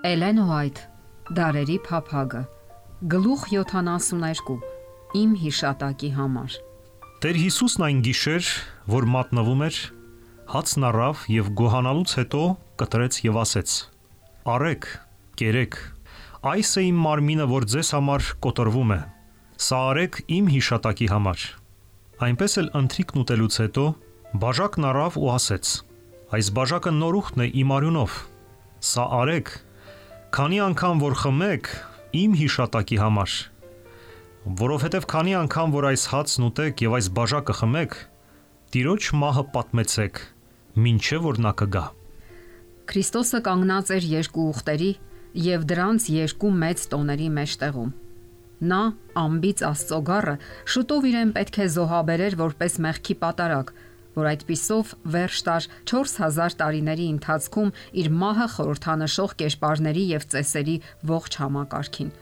Էլեն Ուայթ, Դարերի փափագը, գլուխ 72, իմ հիշատակի համար։ Տեր Հիսուսն այն գիշեր, որ մատնվում էր, հացն առավ եւ գոհանալուց հետո կտրեց եւ ասեց. «Արեք, կերեք, այս է իմ մարմինը, որ ձեզ համար կոտրվում է, սա արեք իմ հիշատակի համար»։ Այնպես էլ ընթրիքն ուտելուց հետո բաժակն առավ ու ասեց. «Այս բաժակը նորուխտն է իմ արյունով, սա արեք, քանի անգամ որ խմեք իմ հիշատակի համար, որովհետև քանի անգամ որ այս հացն ուտեք եւ այս բաժակը խմեք, Տիրոջ մահը պատմեցեք, մինչև որ նա կգա»։ Քրիստոսը կանգնած էր երկու ուղտերի եւ դրանց երկու մեծ տոների մեջտեղում։ Նա ամբից Աստծո գառը շուտով իրեն պետք է զոհաբերեր որպես մեղքի պատարագ, որ այդպիսով վերջ տար 4000 տարիների ընթացքում իր մահը խորհրդանշող կերպարների եւ ծեսերի ողջ համակարգին։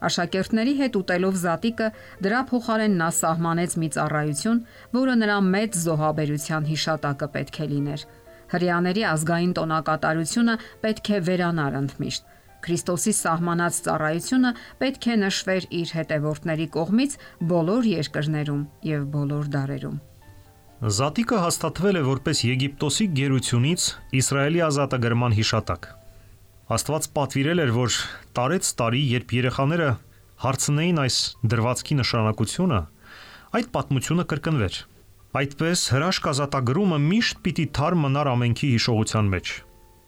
Աշակերտների հետ ուտելով զատիկը դրա փոխարեն նա սահմանեց մի ծառայություն, որը նրա մեծ զոհաբերության հիշատակը պետք է լիներ։ Հրեաների ազգային տոնակատարությունը պետք է վերանար ընդմիշտ։ Քրիստոսի սահմանած ծառայությունը պետք է նշվեր իր հետևորդների կողմից բոլոր երկրներում եւ բոլոր դարերում։ Զատիկը հաստատվել է որպես Եգիպտոսի գերությունից Իսրայելի ազատագրման հիշատակ։ Աստված պատվիրել էր, որ տարեց տարի, երբ երեխաները հարցնեին այս դրվածքի նշանակությունը, այդ պատմությունը կրկնվեր։ Այդպես հրաշք ազատագրումը միշտ պիտի թարմ մնար ամենքի հիշողության մեջ։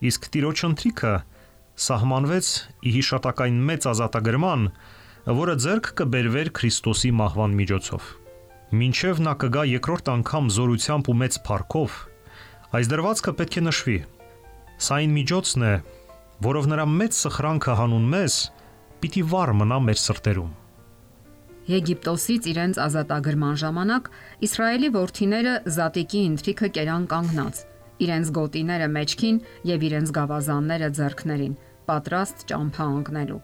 Իսկ Տիրոջ ընթրիքը սահմանվեց ի հիշատակային մեծ ազատագրման, որը ձեռք կբերվեր Քրիստոսի մահվան միջոցով։ Մինչև նա կգա երկրորդ անգամ զորությամբ ու մեծ փառքով, այս դրվածքը պետք է նշվի։ Սա այն միջոցն է, որով նրա մեծ սխրանքը հանուն մեզ պիտի վառ մնա մեր սրտերում։ Եգիպտոսից իրենց ազատագրման ժամանակ Իսրայելի որդիները զատիկի ընթրիքը կերան կանգնած, իրենց գոտիները մեջքին եւ իրենց գավազանները ձեռքներին, պատրաստ ճամփա ընկնելու։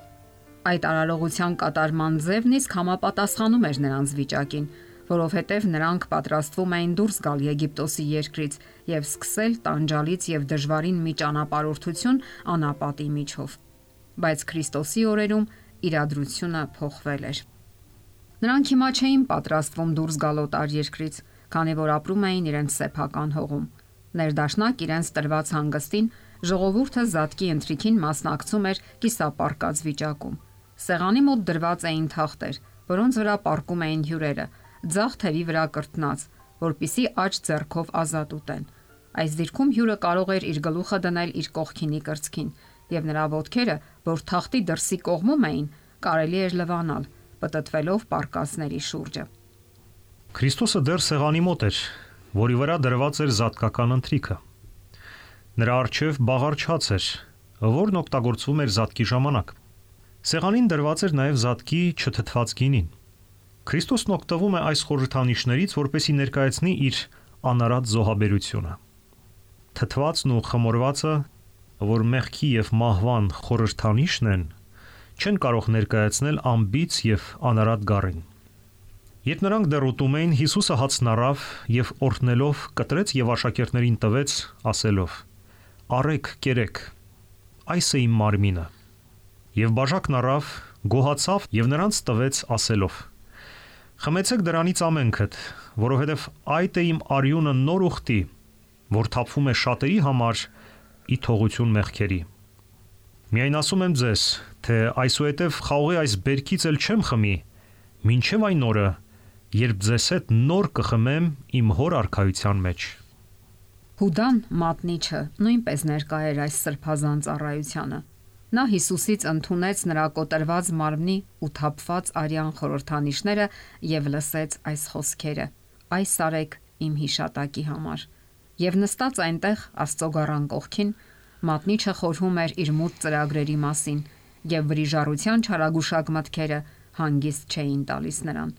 Այդ արարողության կատարման ձևն իսկ համապատասխանում էր նրանց վիճակին, որովհետև նրանք պատրաստվում էին դուրս գալ Եգիպտոսի երկրից եւ սկսել տանջալից եւ դժվարին մի ճանապարհորդություն անապատի միջով։ Բայց Քրիստոսի օրերում իրադրությունը փոխվել էր։ Նրանք հիմա չէին պատրաստվում դուրս գալ օտար երկրից, քանի որ ապրում էին իրենց սեփական հողում։ Ներդաշնակ իրենց տրված հանգստին ժողովուրդը զատկի ընթրիքին մասնակցում էր կիսապարկած վիճակում։ Սեղանի մոտ դրված էին թախտեր, որոնց վրա պառկում էին հյուրերը, ձախ թևի վրա կրտնած, որպիսի աջ ձեռքով ազատ ուտեն։ Այս դիրքում հյուրը կարող էր իր գլուխը դնել իր կողքինի կրծքին, եւ նրա ոտքերը, որ թախտի դրսի կողմում էին, կարելի էր լվանալ, պտտվելով պարկածների շուրջը։ Քրիստոսը դեռ սեղանի մոտ էր, որի վրա դրված էր զատկական ընթրիքը։ Նրա առջև բաղարչած էր, որն օգտագործվում էր զատկի ժամանակ։ Սեղանին դրված էր նաև զատկի չթթված գինին։ Քրիստոսն օգտվում է այս խորհրդանիշներից, որպեսզի ներկայացնի իր անարատ զոհաբերությունը։ Թթվածն ու խմորվածը, որ մեղքի եւ մահվան խորհրդանիշն են, չեն կարող ներկայացնել ամբից եւ անարատ գառին։ Երբ նրանք դեռ ուտում էին, Հիսուսը հացն առավ եւ օրհնելով կտրեց եւ աշակերտներին տվեց, ասելով. «Արեք, կերեք, այս է իմ մարմինը»։ Եվ բաժակն առավ, գոհացավ եւ նրանց տվեց, ասելով. «Խմեցեք դրանից ամենքդ, որովհետև այդ է իմ արյունը նոր ուխտի, որ թափվում է շատերի համար ի թողություն մեղքերի։ Միայն ասում եմ ձեզ, թե այսուհետև խաղողի այս բերքից էլ չեմ խմի, մինչև այն օրը, երբ ձեզ հետ նոր կխմեմ իմ հոր արքայության մեջ»։ Հուդան մատնիչը նույնպես ներկա էր այս սրբազան ծառայությանը։ Նա Հիսուսից ընդունեց նրա կոտրված մարմնի ու թափված արյան խորհրդանիշները եւ լսեց այս խոսքերը. «Այս արեք իմ հիշատակի համար»։ Եվ նստած այնտեղ Աստծո գառան կողքին, մատնիչը խորհում էր իր մութ ծրագրերի մասին, եւ վրիժառության չարագուշակ մտքերը հանգիստ չէին տալիս նրան։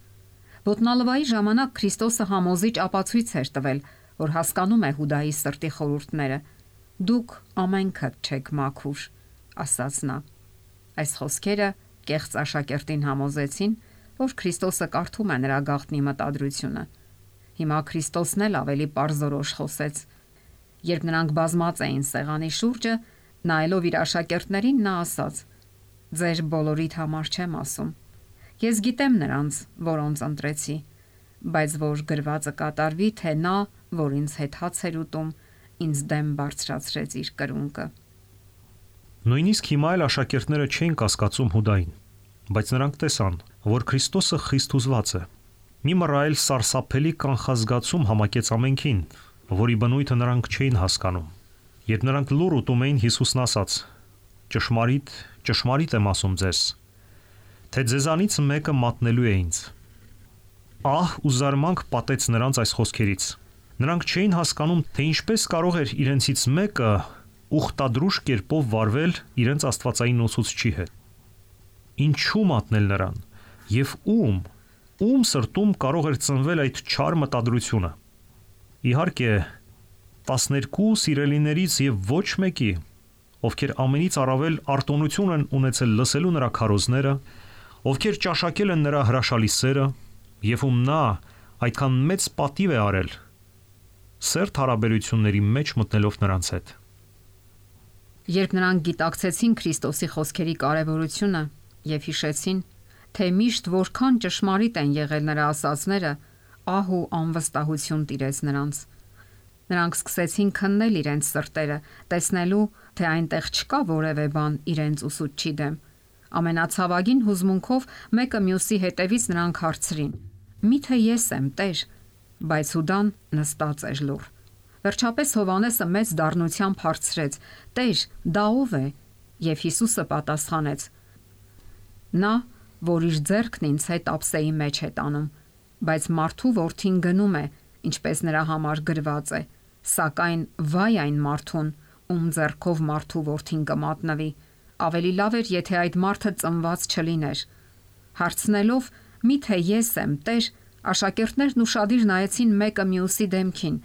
Ոտնալվայի ժամանակ Քրիստոսը համոզիչ ապացույց էր տվել, որ հասկանում է Հուդայի սրտի խորհուրդները։ «Դուք ամենքդ չեք մաքուր», ասաց նա։ Այս խոսքերը կեղծ աշակերտին համոզեցին, որ Քրիստոսը կարդում է նրա գաղտնի մտադրությունը։ Հիմա Քրիստոսն էլ ավելի պարզորոշ խոսեց։ Երբ նրանք բազմած էին սեղանի շուրջը, Նայելով իր աշակերտներին նա ասաց. «Ձեր բոլորիդ համար չեմ ասում։ Ես գիտեմ նրանց, որոնց ընտրեցի, բայց որ գրվածը կատարվի, թե նա, որ ինձ հետ հաց էր ուտում, ինձ դեմ բարձրացրեց իր կրունկը»։ Նույնիսկ հիմա էլ աշակերտները չէին կասկածում Հուդային, բայց նրանք տեսան, որ Քրիստոսը խիստ հուզված է։ Մի մռայլ սարսափելի կանխազգացում համակեց ամենքին, որի բնույթը նրանք չէին հասկանում։ Երբ նրանք լուռ ուտում էին, Հիսուսն ասաց. «Ճշմարիտ, ճշմարիտ եմ ասում ձեզ, թե ձեզանից մեկը մատնելու է ինձ»։ Ահ ու զարմանք պատեց նրանց այս խոսքերից։ Նրանք չէին հասկանում, թե ինչպես կարող էր իրենցից մեկը ուխտադրուժ կերպով վարվել իրենց աստվածային ուսուցչի հետ։ Ինչու մատնել նրան եւ ում սրտում կարող էր ծնվել այդ չար մտադրությունը։ Իհարկե 12 սիրելիներից եւ ոչ մեկի, ովքեր ամենից առավել արտոնություն են ունեցել լսելու նրա քարոզները, ովքեր ճաշակել են նրա հրաշալի սերը եւ ում նա այդքան մեծ պատիվ է արել, սերտ հարաբերությունների մեջ մտնելով նրանց հետ։ Երբ նրանք գիտակցեցին Քրիստոսի խոսքերի կարևորությունը եւ հիշեցին, թե միշտ որքան ճշմարիտ են եղել նրա ասածները, ահ ու անվստահություն տիրեց նրանց։ Նրանք սկսեցին քննել իրենց սրտերը, տեսնելու, թե այնտեղ չկա որևէ բան իրենց ուսուցչի դեմ։ Ամենացավագին հուզմունքով մեկը մյուսի հետևից նրանք հարցրին. «Միթե ես եմ, Տեր»։ Բայց Հուդան նստած էր լուռ։ Վերջապես Հովհաննեսը մեծ դառնությամբ հարցրեց. «Տեր, դա ով է»։ Եվ Հիսուսը պատասխանեց. «Նա, որ իր ձեռքն ինձ հետ ափսեի մեջ է տանում, բայց մարդու որդին գնում է, ինչպես նրա համար գրված է, սակայն վայ այն մարդուն, ում ձեռքով մարդու որդին կմատնվի, ավելի լավ էր, եթե այդ մարդը ծնված չլիներ»։ Հարցնելով. «Միթե ես եմ, Տեր», աշակերտներն ուշադիր նայեցին մեկը մյուսի դեմքին,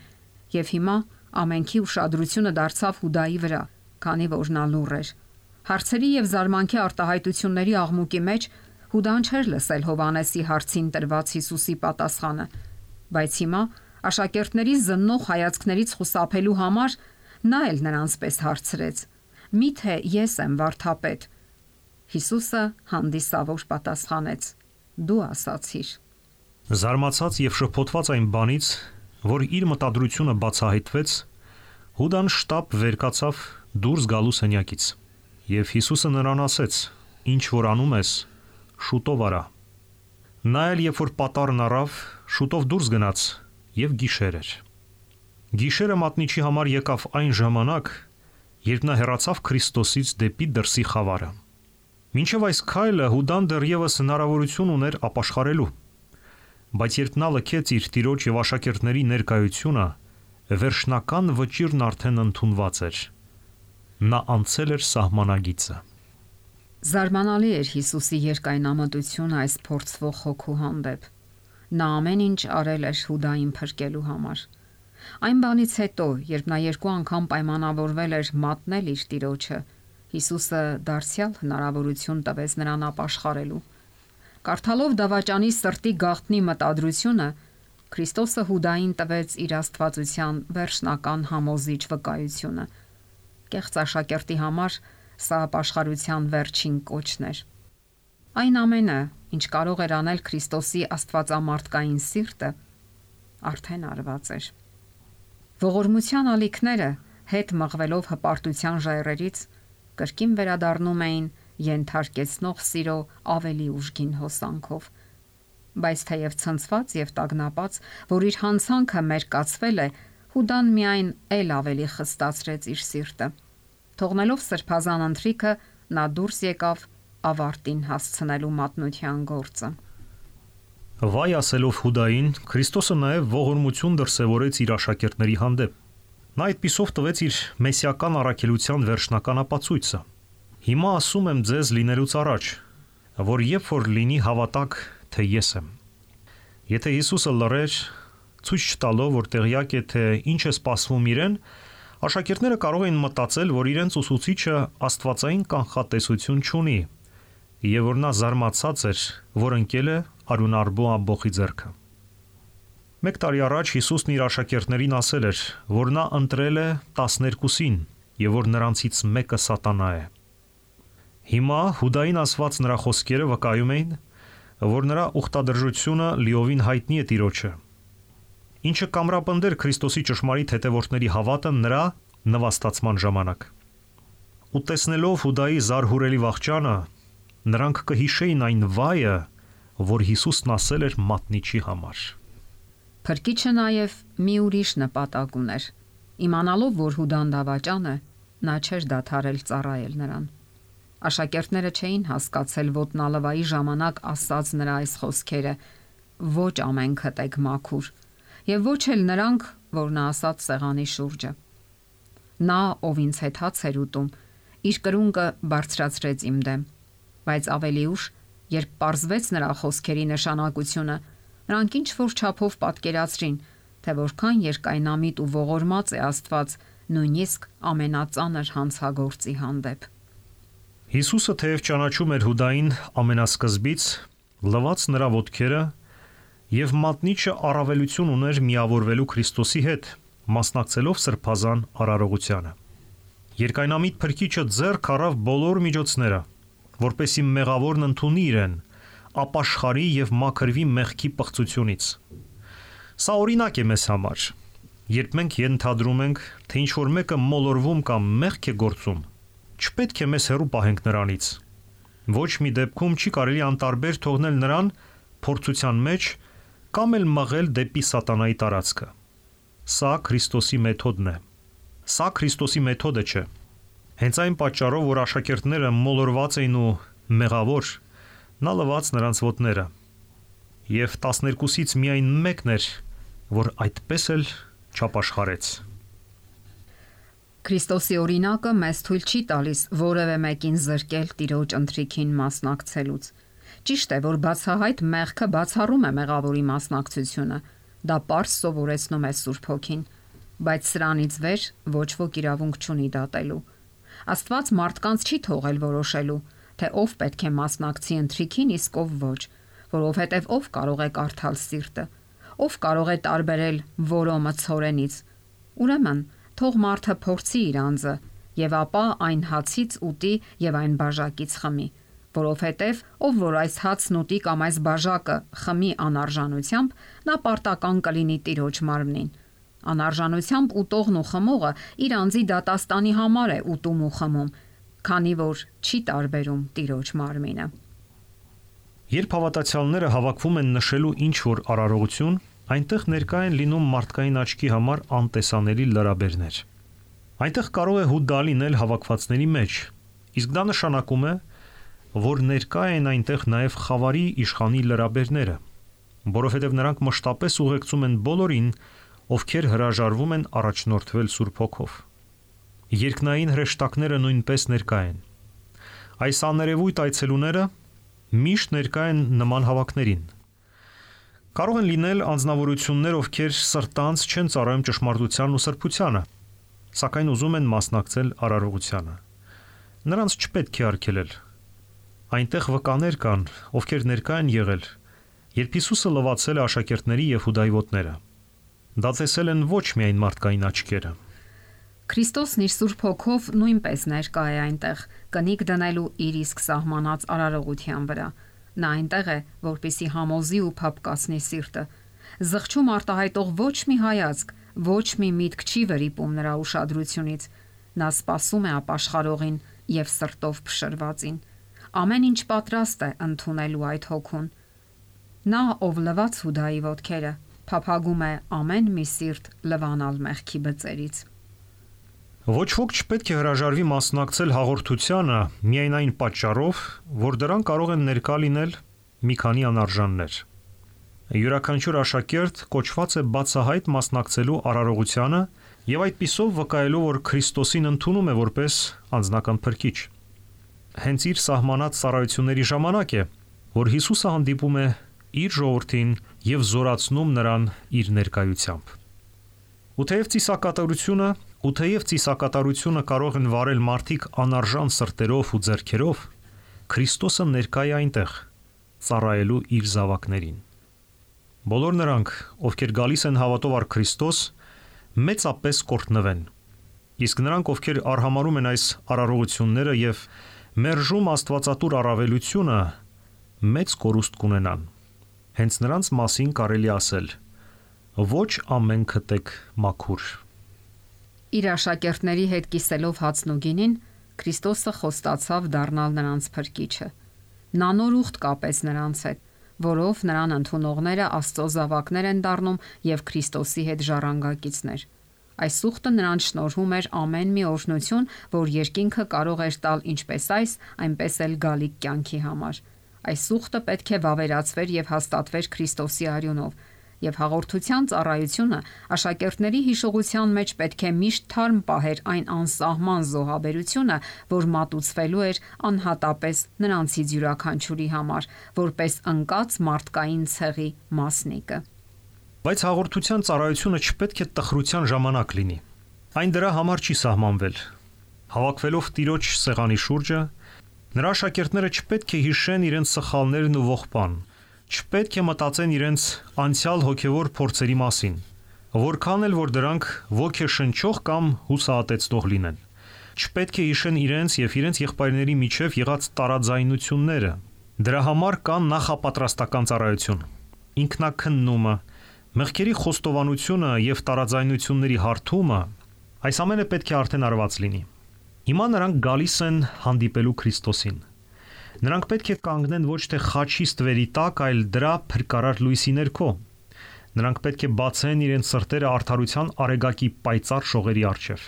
եւ հիմա ամենքի ուշադրությունը դարձավ Հուդայի վրա, քանի որ նա լուռ էր։ Հարցերի եւ զարմանքի արտահայտությունների աղմուկի մեջ Հուդան չէր լսել Հովհաննեսի հարցին տրված Հիսուսի պատասխանը, բայց հիմա աշակերտների զննող հայացքներից խուսափելու համար նա էլ նրանց պես հարցրեց. «Միթե ես եմ վարդապետ»։ Հիսուսը հանդիսավոր պատասխանեց. «Դու ասացիր»։ Զարմացած եւ շփոթված այն բանից, որ իր մտադրությունը բացահայտվեց, Հուդան շտապ վեր կացավ դուրս գալու սենյակից։ Եվ Հիսուսը նրան ասեց. «Ինչ որ անում ես, շուտով արա»։ Նա էլ երբ որ պատառն առավ, շուտով դուրս գնաց եւ գիշեր էր։ Գիշերը մատնիչի համար եկավ այն ժամանակ, երբ նա հեռացավ Քրիստոսից դեպի դրսի խավարը։ Մինչև այս քայլը Հուդան դեռևս հնարավորություն ուներ ապաշխարելու, բայց երբ նա լքեց իր տիրոջ եւ աշակերտների ներկայությունը, վերջնական վճիրն արդեն ընդունված էր։ Նա անցել էր սահմանագիծը։ Զարմանալի էր Հիսուսի երկայնամտությունը այս փորձվող հոգու հանդեպ։ Նա ամեն ինչ արել էր Հուդային փրկելու համար։ Այն բանից հետո, երբ նա 2 անգամ պայմանավորվել էր մատնել իր տիրոջը, Հիսուսը դարձյալ հնարավորություն տվեց նրան ապաշխարելու։ Կարդալով դավաճանի սրտի գաղտնի մտադրությունը, Քրիստոսը Հուդային տվեց իր աստվածության վերջնական համոզիչ վկայությունը։ Կեղծ աշակերտի համար սա ապաշխարության վերջին կոչն էր։ Այն ամենը, ինչ կարող էր անել Քրիստոսի աստվածամարտկային սիրտը, արդեն արված էր։ Ողորմության ալիքները հետ մղվելով հպարտության ժայռերից կրկին վերադառնում էին ենթարկեցնող սիրո ավելի ուժգին հոսանքով։ Բայց թեև ցնցված եւ տագնապած, որ իր հանցանքը մերկացվել է, Հուդան միայն էլ ավելի խստացրեց իր սիրտը։ Թողնելով սրբազան ընթրիքը, նա դուրս եկավ ավարտին հասցնելու մատնության գործը։ Վայ ասելով Հուդային, Քրիստոսը նաև ողորմություն դրսևորեց իր աշակերտների հանդեպ։ Նա այդպիսով տվեց իր մեսիական առաքելության վերջնական ապացույցը։ Հիմա ասում եմ ձեզ լինելուց առաջ, որ երբ որ լինի հավատաք, թե ես եմ։ Եթե Հիսուսը լռեր, ցույց չտալով, որ տեղյակ է, թե ինչ է սպասվում իրեն, աշակերտները կարող էին մտածել, որ իրենց ուսուցիչը աստվածային կանխատեսություն չունի, եւ որ նա զարմացած էր, որ ընկել է արյունարբու ամբոխի ձեռքը։ 1 տարի առաջ Հիսուսն իր աշակերտներին ասել էր, որ նա ընտրել է 12-ին եւ որ նրանցից մեկը սատանա է։ Հիմա Հուդային ասված նրա խոսքերը վկայում էին, որ նրա ուխտադրժությունը լիովին հայտնի է Տիրոջը, ինչը կամրապնդեր Քրիստոսի ճշմարիտ հետևորդների հավատը նրա նվաստացման ժամանակ։ Ու տեսնելով Հուդայի զարհուրելի վախճանը, նրանք կհիշեին այն վայը, որ Հիսուսն ասել էր մատնիչի համար։ Փրկիչը նաև մի ուրիշ նպատակ ուներ։ Իմանալով, որ Հուդան դավաճան է, նա չէր դադարել ծառայել նրան։ Աշակերտները չէին հասկացել ոտնալվայի ժամանակ ասած նրա այս խոսքերը. ոչ ամենքդ եք մաքուր, եւ ոչ էլ նրանք, որ նա ասած սեղանի շուրջը։ Նա, ով ինձ հետ հաց էր ուտում, իր կրունկը բարձրացրեց իմ դեմ, բայց ավելի ուշ, երբ պարզվեց նրա խոսքերի նշանակությունը, նրանք ինչ որ չափով պատկերացրին, թե որքան երկայնամիտ ու ողորմած է Աստված նույնիսկ ամենածանր հանցագործի հանդեպ։ Հիսուսը թեև ճանաչում էր Հուդային ամենասկզբից, լվաց նրա ոտքերը եւ մատնիչը առավելություն ուներ միավորվելու Քրիստոսի հետ, մասնակցելով սրբազան արարողությանը։ Երկայնամիտ փրկիչը ձեռք առավ բոլոր միջոցները, որպեսզի մեղավորն ընդունի իրեն, ապաշխարի եւ մաքրվի մեղքի պղծությունից։ Սա օրինակ է մեզ համար։ Երբ մենք ենթադրում ենք, թե ինչ որ մեկը մոլորվում կամ մեղք է գործում, չպետք է մեզ հեռու պահենք նրանից։ Ոչ մի դեպքում չի կարելի անտարբեր թողնել նրան փորձության մեջ կամ էլ մղել դեպի սատանայի տարածքը։ Սա Քրիստոսի մեթոդն է։ Սա Քրիստոսի մեթոդը չէ։ Հենց այն պատճառով, որ աշակերտները մոլորված էին ու մեղավոր, նա լվաց նրանց ոտները։ Եվ 12-ից միայն մեկն էր, որ այդպես էլ չապաշխարեց։ Քրիստոսի օրինակը մեզ թույլ չի տալիս որևէ մեկին զրկել Տիրոջ ընթրիքին մասնակցելուց։ Ճիշտ է, որ բացահայտ մեղքը բացառում է մեղավորի մասնակցությունը, դա պարզ սովորեցնում է Սուրբ Հոգին, բայց սրանից վեր ոչ ոք իրավունք չունի դատելու։ Աստված մարդկանց չի թողել որոշելու, թե ով պետք է մասնակցի ընթրիքին, իսկ ով ոչ, որովհետև ով կարող է կարդալ սիրտը, ով կարող է տարբերել որոմը ցորենից։ Ուրեմն, թող մարդը փորձի իր անձը, եւ ապա այն հացից ուտի եւ այն բաժակից խմի, որովհետև ով որ այս հացն ուտի կամ այս բաժակը խմի անարժանությամբ, նա պարտական կլինի Տիրոջ մարմնին։ Անարժանությամբ ուտողն ու խմողը իր անձի դատաստանի համար է ուտում ու խմում, քանի որ չի տարբերում Տիրոջ մարմինը։ Երբ հավատացյալները հավաքվում են նշելու ինչ որ արարողություն, այնտեղ ներկա են լինում մարդկային աչքի համար անտեսանելի լրաբերներ։ Այնտեղ կարող է Հուդա լինել հավաքվածների մեջ, իսկ դա նշանակում է, որ ներկա են այնտեղ նաև խավարի իշխանի լրաբերները, որովհետև նրանք մշտապես ուղեկցում են բոլորին, ովքեր հրաժարվում են առաջնորդվել Սուրբ Հոգով։ Երկնային հրեշտակները նույնպես ներկա են։ Այս աներևույթ այցելուները միշտ ներկա են նման հավաքներին։ Կարող են լինել անձնավորություններ, ովքեր սրտանց չեն ծառայում ճշմարտությանն ու սրբությանը, սակայն ուզում են մասնակցել արարողությանը։ Նրանց չպետք է արգելել։ Այնտեղ վկաներ կան, ովքեր ներկա են եղել, երբ Հիսուսը լվացել է աշակերտների եւ Հուդայի ոտները։ Դա տեսել են ոչ միայն մարդկային աչքերը։ Քրիստոսն իր Սուրբ Հոգով նույնպես ներկա է այնտեղ, կնիկ դնելու իր իսկ սահմանած արարողության վրա։ Նա այնտեղ է, որպեսզի համոզի ու փափկացնի սիրտը։ Զղջում արտահայտող ոչ մի հայացք, ոչ մի միտք չի վրիպում նրա ուշադրությունից։ Նա սպասում է ապաշխարողին եւ սրտով փշրվածին։ Ամեն ինչ պատրաստ է ընդունելու այդ հոգուն։ Նա, ով լվաց Հուդայի ոտքերը, փափագում է ամեն մի սիրտ լվանալ մեղքի բծերից։ Ոչ ոք չպետք է հրաժարվի մասնակցել հաղորդությանը միայն այն պատճառով, որ դրան կարող են ներկա լինել մի քանի անարժաններ։ Յուրաքանչյուր աշակերտ կոչված է բացահայտ մասնակցելու արարողությանը եւ այդպիսով վկայելու, որ Քրիստոսին ընդունում է որպես անձնական փրկիչ։ Հենց իր սահմանած ծառայությունների ժամանակ է, որ Հիսուսը հանդիպում է իր ժողովրդին եւ զորացնում նրան իր ներկայությամբ։ Ու թեև ծիսակատարությունը կարող են վարել մարդիկ անարժան սրտերով ու ձեռքերով, Քրիստոսը ներկա է այնտեղ, ծառայելու իր զավակներին։ Բոլոր նրանք, ովքեր գալիս են հավատով առ Քրիստոս, մեծապես կորտնվեն, Իսկ նրանք, ովքեր արհամարհում են այս արարողությունները եւ մերժում Աստվածատուր առավելությունը, մեծ կորուստ կունենան։ Հենց նրանց մասին կարելի ասել. ոչ ամեն քտեք մաքուր։ Իր աշակերտների հետ կիսելով հացն ու գինին, Քրիստոսը խոստացավ դառնալ նրանց փրկիչը։ Նա նոր ուխտ կապեց նրանց հետ, որով նրան ընդունողները Աստծո զավակներ են դառնում եւ Քրիստոսի հետ ժառանգակիցներ։ Այս ուխտը նրանց շնորհում էր ամեն մի օրհնություն, որ երկինքը կարող էր տալ ինչպես այս, այնպես էլ գալիք կյանքի համար։ Այս ուխտը պետք է վավերացվեր եւ հաստատվեր Քրիստոսի արյունով, եւ հաղորդության ծառայությունը աշակերտների հիշողության մեջ պետք է միշտ թարմ պահեր այն անսահման զոհաբերությունը, որ մատուցվելու էր անհատապես նրանցից յուրաքանչյուրի համար, որպես ընկած մարդկային ցեղի մասնիկը։ Բայց հաղորդության ծառայությունը չպետք է տխրության ժամանակ լինի։ Այն դրա համար չի սահմանվել։ Հավաքվելով Տիրոջ սեղանի շուրջը, նրա աշակերտները չպետք է հիշեն իրենց սխալներն ու ողբան, չպետք է մտածեն իրենց անցյալ հոգևոր փորձերի մասին, որքան էլ որ դրանք ոգեշնչող կամ հուսահատեցնող լինեն։ Չպետք է հիշեն իրենց եւ իրենց եղբայրների միջև եղած տարաձայնությունները։ Դրա համար կան նախապատրաստական ծառայություն, ինքնակննումը, մեղքերի խոստովանությունը եւ տարաձայնությունների հարթումը, այս ամենը պետք է արդեն արված լինի։ Հիմա նրանք գալիս են հանդիպելու Քրիստոսին։ Նրանք պետք է կանգնեն ոչ թե խաչի ստվերի տակ, այլ դրա փրկարար լույսի ներքո։ Նրանք պետք է բացեն իրենց սրտերը արդարության արեգակի պայծառ շողերի առջև։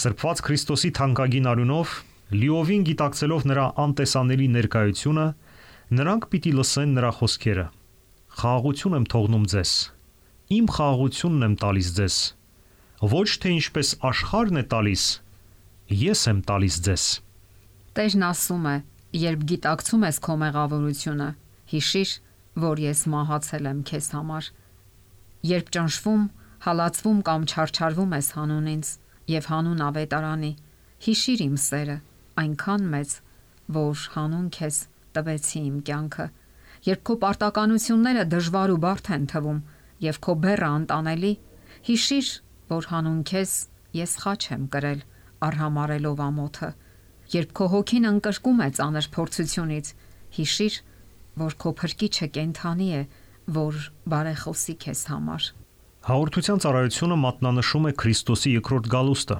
Սրբված Քրիստոսի թանկագին արյունով, լիովին գիտակցելով նրա անտեսանելի ներկայությունը, նրանք պիտի լսեն նրա խոսքերը. «Խաղաղություն եմ թողնում ձեզ, իմ խաղաղությունն եմ տալիս ձեզ, ոչ թե ինչպես աշխարհն է տալիս, ես եմ տալիս ձեզ»։ Տերն ասում է. «Երբ գիտակցում ես քո մեղավորությունը, հիշիր, որ ես մահացել եմ քեզ համար»։ Երբ ճնշվում, հալածվում կամ չարչարվում ես հանուն ինձ եւ հանուն ավետարանի, հիշիր իմ սերը, այնքան մեծ, որ հանուն քեզ տվեցի իմ կյանքը։ Երբ քո պարտականությունները դժվար ու բարդ են թվում եւ քո բեռը անտանելի, հիշիր, որ հանուն քեզ ես խաչ եմ կրել, արհամարելով ամոթը։ Երբ քո հոգին ընկրկում է ծանր փորձությունից, հիշիր, որ քո փրկիչը կենդանի է, որ բարեխոսի քեզ համար։ Հաղորդության ծառայությունը մատնանշում է Քրիստոսի երկրորդ գալուստը։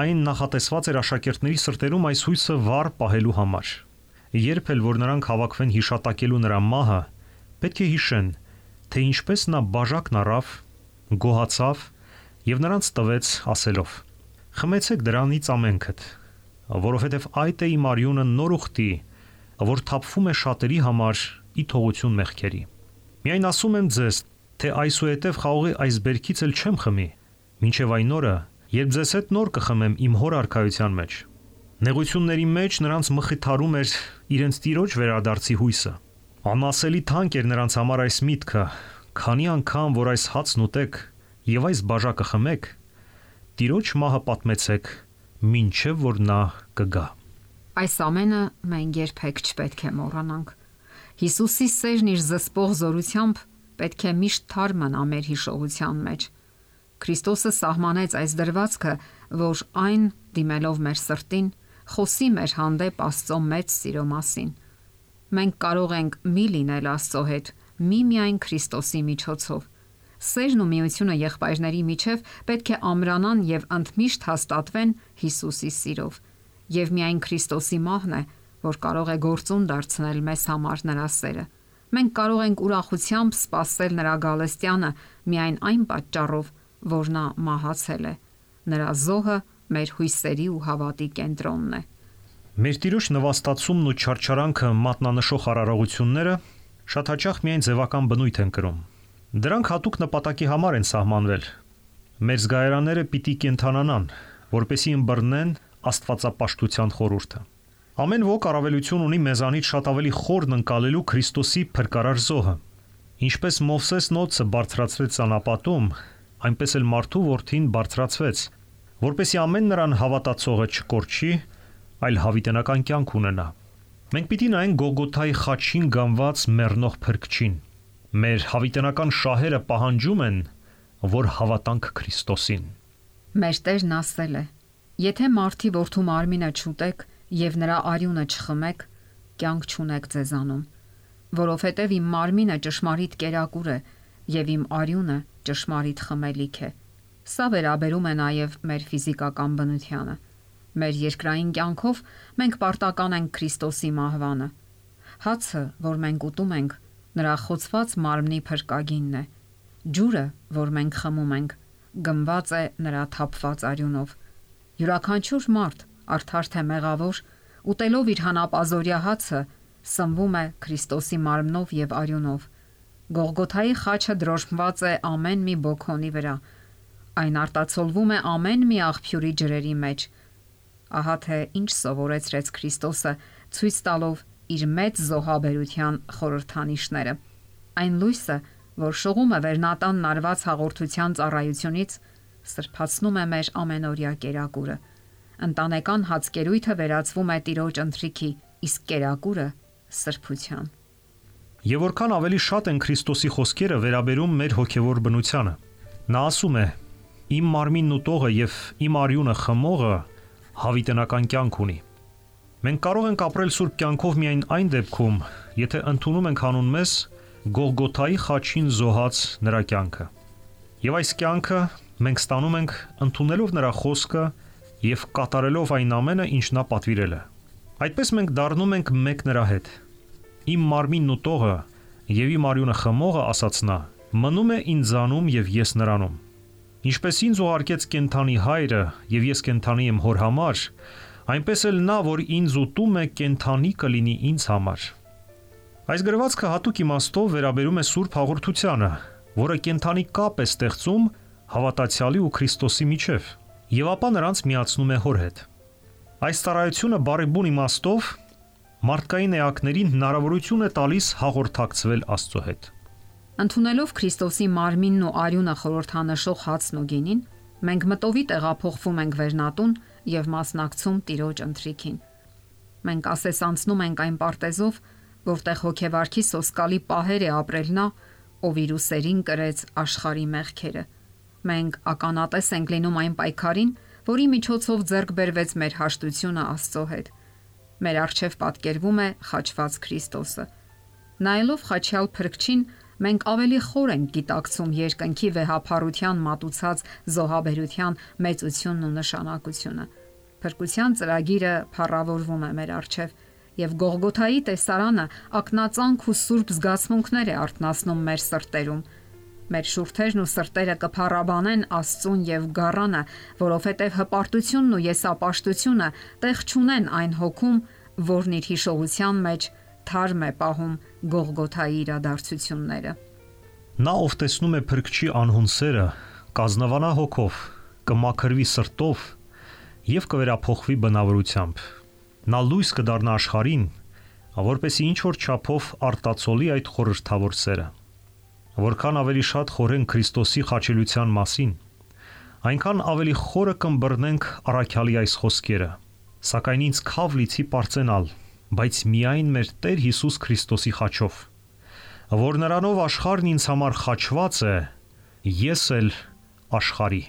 Այն նախատեսված էր աշակերտների սրտերում այս հույսը վառ պահելու համար։ Երբ էլ որ նրանք հավաքվեն հիշատակելու նրա մահը, պետք է հիշեն, թե ինչպես նա բաժակն առավ, գոհացավ եւ նրանց տվեց ասելով. «Խմեցեք դրանից ամենքդ, որովհետև այդ է իմ արյունը նոր ուխտի, որ թափվում է շատերի համար ի թողություն մեղքերի։ Միայն ասում եմ ձեզ, թե այսուհետև խաղողի այս բերքից էլ չեմ խմի, մինչև այն օրը, երբ ձեզ հետ նոր կխմեմ իմ հոր արքայության մեջ»։ Նեղությունների մեջ նրանց մխիթարում էր իրենց Տիրոջ վերադարձի հույսը։ Անասելի թանկ էր նրանց համար այս միտքը. քանի անգամ որ այս հացն ուտեք եւ այս բաժակը խմեք, Տիրոջ մահը պատմեցեք, մինչև որ նա կգա։ Այս ամենը մենք երբեք չպետք է մոռանանք։ Հիսուսի սերն իր զսպող զորությամբ պետք է միշտ թարմ մնա մեր հիշողության մեջ։ Քրիստոսը սահմանեց այս դրվածքը, որ այն դիմելով մեր սրտին, խոսի մեր հանդեպ Աստծո մեծ սիրո մասին։ Մենք կարող ենք մի լինել Աստծո հետ, միմիայն Քրիստոսի միջոցով։ Սերն ու միությունը եղբայրների միջև պետք է ամրանան եւ ընդմիշտ հաստատվեն Հիսուսի սիրով։ Եվ միայն Քրիստոսի մահն է, որ կարող է գործուն դարձնել մեզ համար նրա սերը։ Մենք կարող ենք ուրախությամբ սպասել նրա գալստյանը միայն այն պատճառով, որ նա մահացել է։ Նրա զոհը մեր հույսերի ու հավատի կենտրոնն է։ Մեր Տիրոջ նվաստացումն ու չարչարանքը մատնանշող արարողությունները շատ հաճախ միայն ձևական բնույթ են կրում։ Դրանք հատուկ նպատակի համար են սահմանվել։ Մեր զգայարանները պիտի կենթանանան, որպեսզի ըմբռնեն աստվածապաշտության խորհուրդը։ Ամեն ոք առավելություն ունի մեզանից շատ ավելի խորն ընկալելու Քրիստոսի փրկարար զոհը։ Ինչպես Մովսես նոցը բարձրացրեց անապատում, այնպես էլ մարդու որդին բարձրացվեց, որպեսզի ամեն նրան հավատացողը չկորչի, այլ հավիտենական կյանք ունենա։ Մենք պիտի նայենք Գողգոթայի խաչին գանված մեռնող փրկչին։ Մեր հավիտենական շահերը պահանջում են, որ հավատանք Քրիստոսին։ Մեր Տերն ասել է. «Եթե մարդի որդու մարմինը չուտեք եւ նրա արյունը չխմեք, կյանք չունեք ձեզանում, որովհետեւ իմ մարմինը ճշմարիտ կերակուր է եւ իմ արյունը ճշմարիտ խմելիք է»։ Սա վերաբերում է նաեւ մեր ֆիզիկական բնությանը։ Մեր երկրային կյանքով մենք պարտական ենք Քրիստոսի մահվանը։ Հացը, որ մենք ուտում ենք, նրա խոցված մարմնի փրկագինն է։ Ջուրը, որ մենք խմում ենք, գնված է նրա թափված արյունով։ Յուրաքանչյուր մարդ, արդար թե մեղավոր, ուտելով իր հանապազորյա հացը, սնվում է Քրիստոսի մարմնով եւ արյունով։ Գողգոթայի խաչը դրոշմված է ամեն մի բոքոնի վրա։ Այն արտացոլվում է ամեն մի աղբյուրի ջրերի մեջ։ Ահա թե ինչ սովորեցրեց Քրիստոսը, ցույց տալով իր մեծ զոհաբերության խորհրդանիշները։ Այն լույսը, որ շողում է վերնատանն արված հաղորդության ծառայությունից, սրբացնում է մեր ամենօրյա կերակուրը։ Ընտանեկան հացկերույթը վերածվում է Տիրոջ ընթրիքի, իսկ կերակուրը սրբության։ Եվ որքան ավելի շատ են Քրիստոսի խոսքերը վերաբերում մեր հոգևոր բնությանը։ Նա ասում է. «Իմ մարմինն ուտողը եւ իմ արյունը խմողը հավիտենական կյանք ունի»։ Մենք կարող ենք ապրել սուրբ կյանքով միայն այն դեպքում, եթե ընդունում ենք հանուն մեզ Գողգոթայի խաչին զոհած նրա կյանքը։ Եվ այս կյանքը մենք ստանում ենք ընդունելով նրա խոսքը եւ կատարելով այն ամենը, ինչ նա պատվիրել է։ Այդպես մենք դառնում ենք մեկ նրա հետ։ Իմ մարմինն ուտողը եւ իմ արյունը խմողը, ասաց նա, մնում է ինձանում եւ ես նրանում։ Ինչպես ինձ ուղարկեց կենթանի հայրը եւ ես կենթանի եմ հոր համար, այնպես էլ նա, որ ինձ ուտում է, կենթանի կլինի ինձ համար։ Այս գրվածքը հատուկ իմաստով վերաբերում է Սուրբ Հաղորդությանը, որը կենթանի կապ է ստեղծում հավատացյալի ու Քրիստոսի միջև, եւ ապա նրանց միացնում է հոր հետ։ Այս ծառայությունը բարեբուն իմաստով մարդկային էակներին հնարավորություն է տալիս հաղորդակցվել Աստծո հետ։ Ընդունելով Քրիստոսի մարմինն ու արյունը խորհրդանշող հացն ու գինին, մենք մտովի տեղափոխվում ենք վերնատուն եւ մասնակցում Տիրոջ ընթրիքին։ Մենք ասեսանցնում ենք այն պարտեզով, որտեղ հոգեվարքի սոսկալի պահեր է ապրել նա, ով իր ուսերին կրեց աշխարհի մեղքերը։ Մենք ականատես ենք լինում այն պայքարին, որի միջոցով ձեռք բերվեց մեր հաշտությունը Աստծո հետ։ Մեր առջև պատկերվում է խաչված Քրիստոսը։ Նայելով խաչյալ Փրկչին, մենք ավելի խոր ենք գիտակցում երկնքի վեհափառության մատուցած զոհաբերության մեծությունն ու նշանակությունը։ Փրկության ծրագիրը փառավորվում է մեր առջև, եւ Գողգոթայի տեսարանը ակնածանք ու սուրբ զգացմունքներ է արթնացնում մեր սրտերում։ Մեր շուրթերն ու սրտերը կփառաբանեն Աստծուն եւ Գառանը, որովհետեւ հպարտությունն ու եսապաշտությունը տեղ չունեն այն հոգում, որն իր հիշողության մեջ թարմ է պահում Գողգոթայի իրադարձությունները։ Նա, ով տեսնում է Փրկչի անհուն սերը, կազնվանա հոգով, կմաքրվի սրտով եւ կվերափոխվի բնավորությամբ։ Նա լույս կդառնա աշխարհին, որպեսզի ինչ որ չափով արտացոլի այդ խորհրդավոր սերը։ Որքան ավելի շատ խորենք Քրիստոսի խաչելության մասին, այնքան ավելի խորը կըմբռնենք առաքյալի այս խոսքերը։ Սակայն ինձ քավ լիցի պարծենալ, բայց միայն մեր Տեր Հիսուս Քրիստոսի խաչով, որ նրանով աշխարհն ինձ համար խաչված է, ես էլ աշխարհի։